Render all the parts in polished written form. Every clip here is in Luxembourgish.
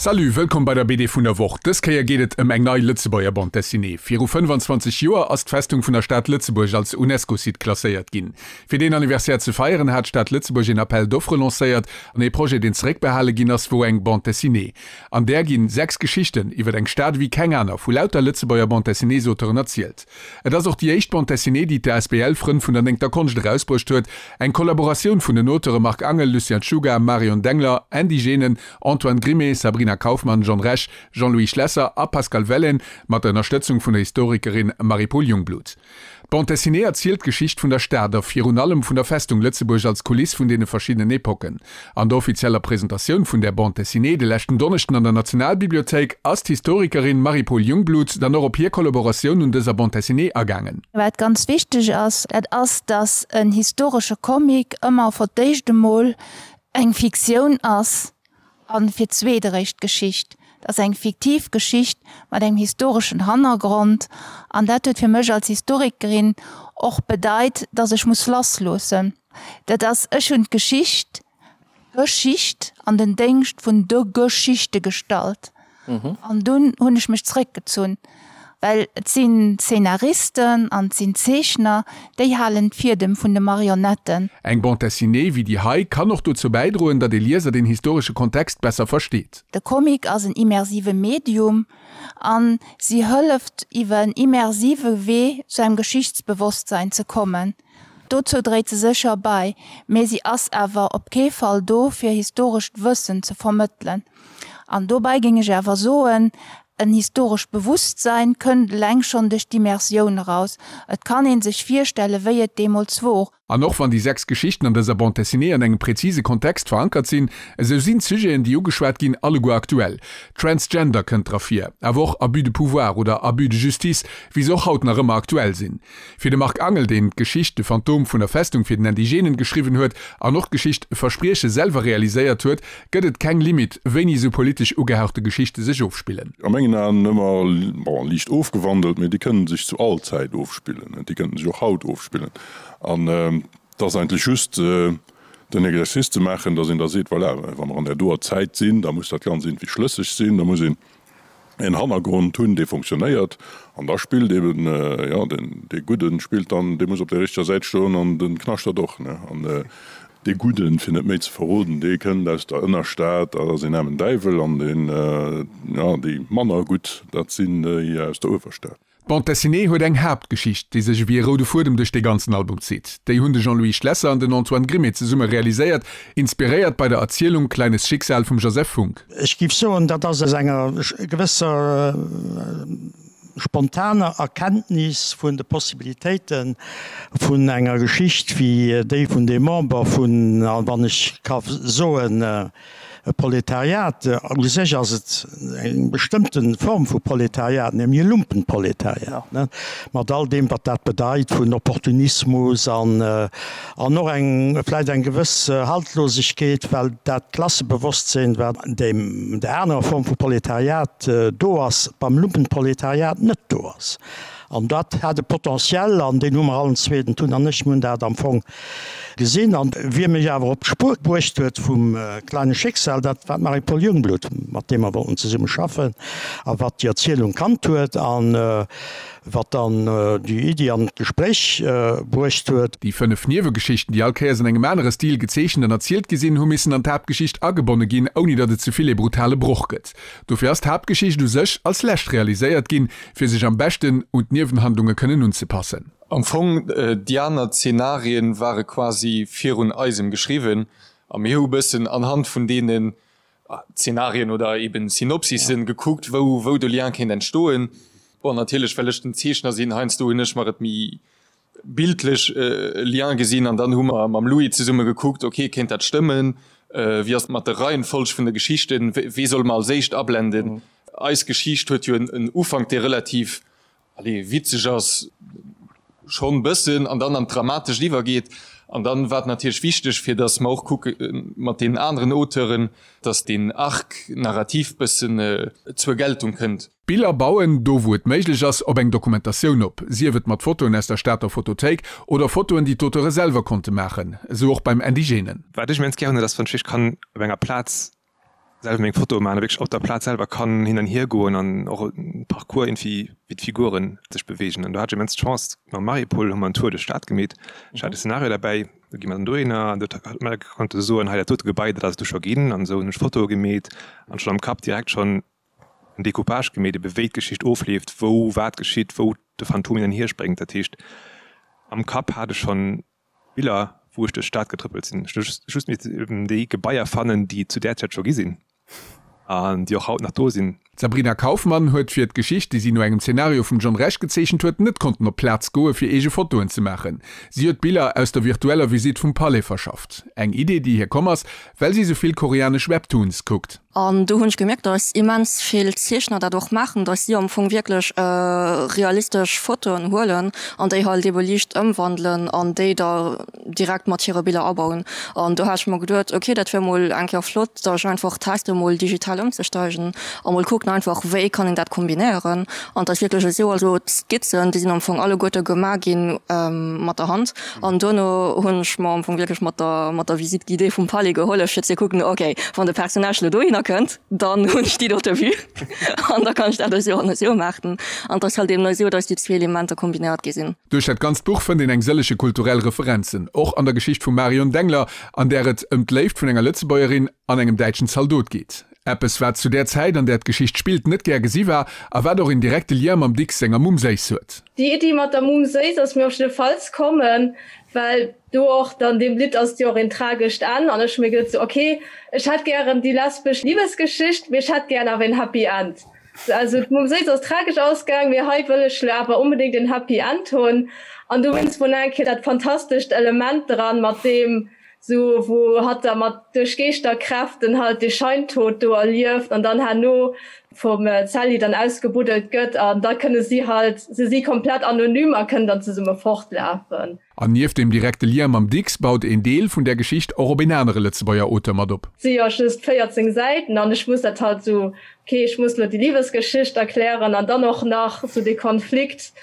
Salut, wëllkomm bei der BD vun der Woch. Dës Kéier geet et ëm eng nei Lëtzebuerger Bande Dessinée. Viru 25 Joer ass d'Festung vun der Stad Lëtzebuerg als UNESCO-Site klasséiert ginn. Fir deen Anniversaire ze feieren, hat d'Stad Lëtzebuerg een Appel d'offres lancéiert an ee Projet, deen zeréckbehale ginn ass, wor eng Bande Dessinée. An där ginn 6 Geschichten iwwer eng Stad ewéi keng aner vu lauter Lëtzebuerger Bande Dessinées-Auteuren erzielt. Et ass och déi éischt Bande Dessinée, déi d'ASBL Frënn vun der Néngter Konscht erausbruecht huet, eng Kollaboratioun vun den Auteure Marc Angel, Lucien Czuga, Marion Dengler, Andy Genen, Antoine Grimée, Sabrina Kaufmann, John Rech, Jean-Louis Schlesser a Pascal Wellen, mat der Ënnerstëtzung vun der Historikerin Marie-Paule Jungblut. D'Bande dessinée erzielt d'Geschicht vun der Stad a virun allem vun der Festung Lëtzebuerg als Kuliss vun deene verschiddenen Epocken. An der offizieller Presentatioun vun där Bande dessinée de leschten Donneschden an der Nationalbibliothéik ass d'Historikerin Marie-Paule Jungblut dann och op hir Kollaboratioun un dëser Bande dessinée agaangen. Wat ganz wichteg ass, dat ass, datt en historesche Comic ëmmer for d'éischt emol eng Fiktioun ass A fir d'zweet eréischt d'Geschicht. Et ass eng fiktiv Geschicht mat engem historeschen Hannergrond. An dat huet fir mech als Historikerin och bedeit, datt ech muss lassloossen. Dat ass, ech hunn d'Geschicht, Geschicht an den Déngscht vun de Geschichte gestallt. An dunn hunn ech mech zréckgezunn, well et sinn Zeenaristen an et sinn Zeechner, déi halen d'Fiedem vun de Marionetten. Eng Bande dessinée wéi déi hei kann och dozou bäidroen, datt ee Lieser den historesche Kontext besser versteet. De Comic ass en immersive Medium an si hëlleft iwwer en immersive Wee zu engem Geschichtsbewosstsein ze kommen. Dozou dréit se sécher bei, mee si ass awer op kee Fall do fir historescht Wëssen ze vermëttelen. An dobäi géing ech awer soen, en historescht Bewusstsein kënnt eleng schonn duerch d'Immersioun eraus. Et kann ee sech virstellen, wéi et deemools wor. An och wann déi 6 Geschichten an dëser Bande dessinée an engem präzise Kontext verankert sinn, esou sinn d'Sujeten, déi ugeschwat ginn, alleguer aktuell. Transgender kënnt dra vir, awer och Abus de pouvoir oder Abus de justice, wéi se och haut nach ëmmer aktuell sinn. Fir de Marc Angel, deen d'Geschicht De Phantom vun der Festung fir den Andy Genen geschriwwen huet an och d'Geschicht Versprieche selwer realiséiert huet, gëtt et keng Limite, wéini esou politesch ugehauchte Geschichte sech ofspillen. A mengen Aen ëmmer, bon, liicht ofgewandelt, mee déi kënnen sech zu all Zäit ofspillen, déi kënnten sech och haut ofspillen. An et ass eigentlech just den Exercice ze maachen, datt een da seet, voilà, wa mer an där doer Zäit sinn, da muss dat Ganzt iergendwéi schlësseg sinn, da muss een en Hannergrond hunn, dee fonctionnéiert, an da spillt eben, jo, den, dee Gudden spillt dann, dee muss op der richteger Säit stoen an de Knaschtert och, ne. An dee Gudden, fir net méi ze verroden, dee kënnt aus der Ënnerstad, dat ass een aarmen Däiwel, an deen, jo, déi manner gutt, dat sinn déi aus der Uewerstad. D'Bande dessinée huet eng Haaptgeschicht, déi sech ewéi e roude Fuedem duerch dee ganzen Album zitt. Déi hunn de Jean-Louis Schlesser an den Antoine Grimée zesumme realiséiert, inspiréiert bei der Erzielung Kleines Schicksal vum Joseph Funk. Ech géif soen, dat ass aus enger gewësser spontaner Erkenntnis vun de Possibilitéite vun enger Geschicht wéi déi vun deem Member vun, wann ech ka soen, E Proletariat, u sech ass et eng bestëmmte Form vu Proletariat, nämlech e Lumpenproletariat, mat all deem wat dat bedeit vun Opportunismus an an och eng vläicht eng gewëss Haltlosegkeet, well dat Klassebewosstsinn, wat an deem der anerer Form vu Proletariat do ass, beim Lumpenproletariat net do ass. An dat hat e Potentiel, an deen hu mer allen zwee, den Tun an ech, mir hunn dat am Fong gesinn. An wie mech awer op d'Spuer bruecht huet vum Kleine Schicksal, dat war d'Marie-Paule Jungblut, mat deem mer wollten zesumme schaffen a wat déi Erzielung kannt huet a wat dann déi Iddi an d'Gespréich bruecht huet. Déi 5 Niewegeschichten, déi all Kéiers an engem anere Stil gezeechent an erzielt gi sinn, hu missen an d'Haaptgeschicht agebonne ginn, ouni datt et ze vill ee brutale Broch gëtt. Dofir ass d'Haaptgeschicht u sech als lescht realiséiert ginn, fir sech am beschten un d'Niewenhandlunge kënnen unzepassen. Am Fong, déi aner Zenarien ware quasi virun eisem geschriwwen a mir hu bëssen anhand vun deenen Zenarien oder eben Synopsissen gekuckt, wou wou de Lien kéint entstoen. Bon, natierlech well ech den Zeechner sinn, heiansdo hunn ech mer et méi bildlech e Lien gesinn an dann hu mer mam Louis zesumme gekuckt, ok, kéint dat stëmmen, wéi ass et mat der Reihenfolg vun de Geschichten, wee solle mer als éischt ablenden? Eis Geschicht huet jo en Ufank, dee relativ, allez, witzeg ass, schonn bëssen, an dann an d'Dramatescht iwwergeet. An dann war et natierlech wichteg, fir datt mer och kucke mat deenen aneren Auteuren, datt deen Arc narratif bëssen zur Geltung kënnt. D'Biller bauen, do wou et méiglech ass, op eng Dokumentatioun op, sief et mat Fotoen aus der Stater Fotothéik oder Fotoen, déi d'Auteure selwer konnte maachen, esou och beim Indigène. Wat ech immens gär hunn, dat ass, wann ech wierklech kann op enger Plaz. Selwer meng Fotoe maachen a wierklech op der Plaz selwer kann hin an hier goen an och e Parcours irgendwie wéi d'Figuren sech beweegen. An do hat ech immens d'Chance, mam Marie-Paule hu mer en Tour duerch d'Stad gemeet. Ech hat e Szenario derbäi, do gi mer dann dohinner an do huet mer konnte soen, hei dat dote Gebai, dat ass et du scho ginn an esou hunn ech Fotoe gemeet an schonn am Kapp direkt schonn en Decoupage gemeet, ebe wéi d'Geschicht ofleeft, wou wat geschitt, wou de Phantom hin an hier spréngt. Dat heescht am Kapp hat ech schonn Biller, wou ech duerch d'Stad getrëppelt sinn. Ech hu just missten eben déi Gebaier fannen, déi et zu där Zäit scho gi sinn an déi och haut nach do sinn. D'Sabrina Kaufmann huet fir d'Geschicht, déi si no engem Zenario vum John Rech gezeechent huet, net konnten op d'Plaz goe fir eege Fotoen ze maachen. Si huet Biller aus der virtueller Visitt vum Palais verschafft. Eng Idee, déi hir komm ass, well si sou vill koreanesch Webtoons kuckt. An do hunn ech gemierkt, dass immens vill Zeechner dat och maachen, dass si am Fong wierklech realistesch Fotoen huelen an déi halt ebe liicht ëmwandelen an déi da direkt mat hire Biller abauen. An do hat ech mer geduet, ok, dat wier mol eng Kéier flott, da ech einfach teste mol digital ëmzesteigen a mol kucken einfach, wéi kann een dat kombinéieren. An et ass wierklech esou, also d'Skizzen, déi sinn am Fong alleguerte gemaach gi mat der Hand. An duerno hunn ech mer am Fong wierklech mat der, mat der Visite guidée vum Palais gehollef, fir ze kucken, ok, wann de Personnage elo dohinner kënnt, dann hunn ech déi dote Vue an da kann ech dat esou an esou maachen. An et ass halt eben esou, datt déi zwee Elementer kombinéiert gi sinn. Duerch dat ganzt Buch fënnt een eng sëllege kulturell Referenzen, och an der Geschicht vum Marion Dengler, an där et ëm d'Léift vun enger Lëtzebuergerin an engem däitschen Zaldot geet. Eppes, wat zu där Zäit, an där d'Geschicht spillt, net gär gesi war a wat och een direkte Lien mam Dicks senger Mumm Séiss huet. Déi Iddi mat der Mumm Séiss ass mir op jiddefalls kommen, well do och dann deem Lidd ass jo och een tragescht Enn an ech hu mir geduet sou, ok, ech hätt gären déi lesbesch Libesgeschicht, mee ech hätt gären awer een Happy End. Also d'Mumm Séiss ass tragesch ausgaang, mee hei wëll ech lo awer onbedéngt een Happy End hunn an dowéinst wor nach eng Kéier dat fantastescht Element dran mat deem Sou wou hatt da mat duerch Geeschterkräften halt dee Scheintod do erlieft an dann herno vum Sally dann ausgebuddelt gëtt an da kënne si halt, se si komplett anonym a kënnen dann zesumme fortlafen. An nieft dem direkte Lien mam Dicks baut een Deel vun där Geschicht och op een anere Lëtzebuerger Auteur mat op. Et si jo just 14 Säiten an ech muss dat halt sou, ok ech muss lo déi Libesgeschicht erklären an dann och nach sou dee Konflikt,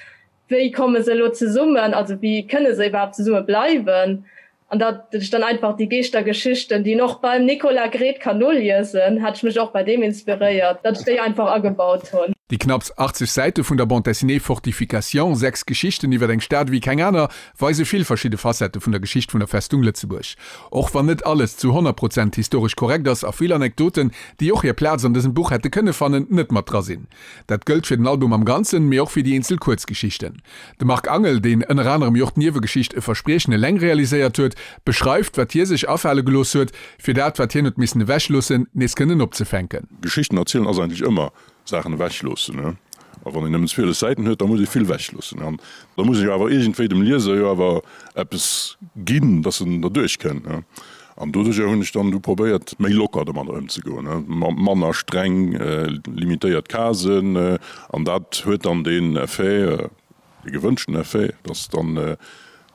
wéi komme se elo zesummen, also wéi kënne se iwwerhaapt zesumme bleiwen. An datt ech dann einfach déi Geeschtergeschichten, déi een och beim Nicolas Gredt kann noliesen, hat ech mech och bei deem inspiréiert, datt ech déi einfach agebaut hunn. Déi knapps 80 Säite vun der Bande dessinée Fortification, 6 Geschichten iwwer eng Stad ewéi keng aner, weise vill verschidde Facette vun der Geschicht vun der Festung Lëtzebuerg. Och wann net alles zu 100 Prozent historesch korrekt ass a vill Anekdoten, déi och hir Plaz an dësem Buch hätte kënne fannen, net mat dra sinn. Dat gëllt fir den Album am Ganzen, mee och fir déi eenzel Kuerzgeschichten. De Marc Angel, deen ënner anerem jo och d'Niewegeschicht E Verspriechen eleng realiséiert huet, beschreift, wat hie sech afale gelooss huet, fir dat, wat hien huet missen ewechloossen, nees kënnen opzefänken. Geschichten erzielen ass eigentlech ëmmer Saachen ewechloossen. A wann een nëmmen 12 Säiten huet, da muss ee vill ewechloossen. An da muss een jo awer iergendwéi dem Lieser jo awer eppes ginn, dass en derduerch kënnt. An doduerjer hunn ech dann du probéiert, méi locker domadder ëmzegoen, manner streng limitéiert Casen. An dat huet dann deen Effet, dee gewënschten Effet, dass dann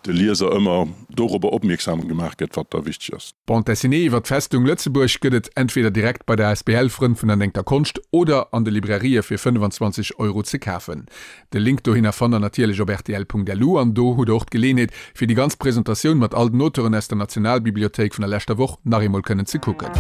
de Lieser ëmmer dorobber opmierksam gemaach gëtt, wat da wichteg ass. D'Bande dessinée iwwer d'Festung Lëtzebuerg gëtt et entweder direkt bei der asbl Frënn vun der Néngter Konscht oder an de Librairië fir 25 Euro ze kafen. De Link dohinner fannt der natierlech op rtl.lu an do hutt der och d'Geleenheet fir déi ganz Presentatioun mat all den Auteuren aus der Nationalbibliothéik vun der leschter Woch nach eemol kënnen ze kucken.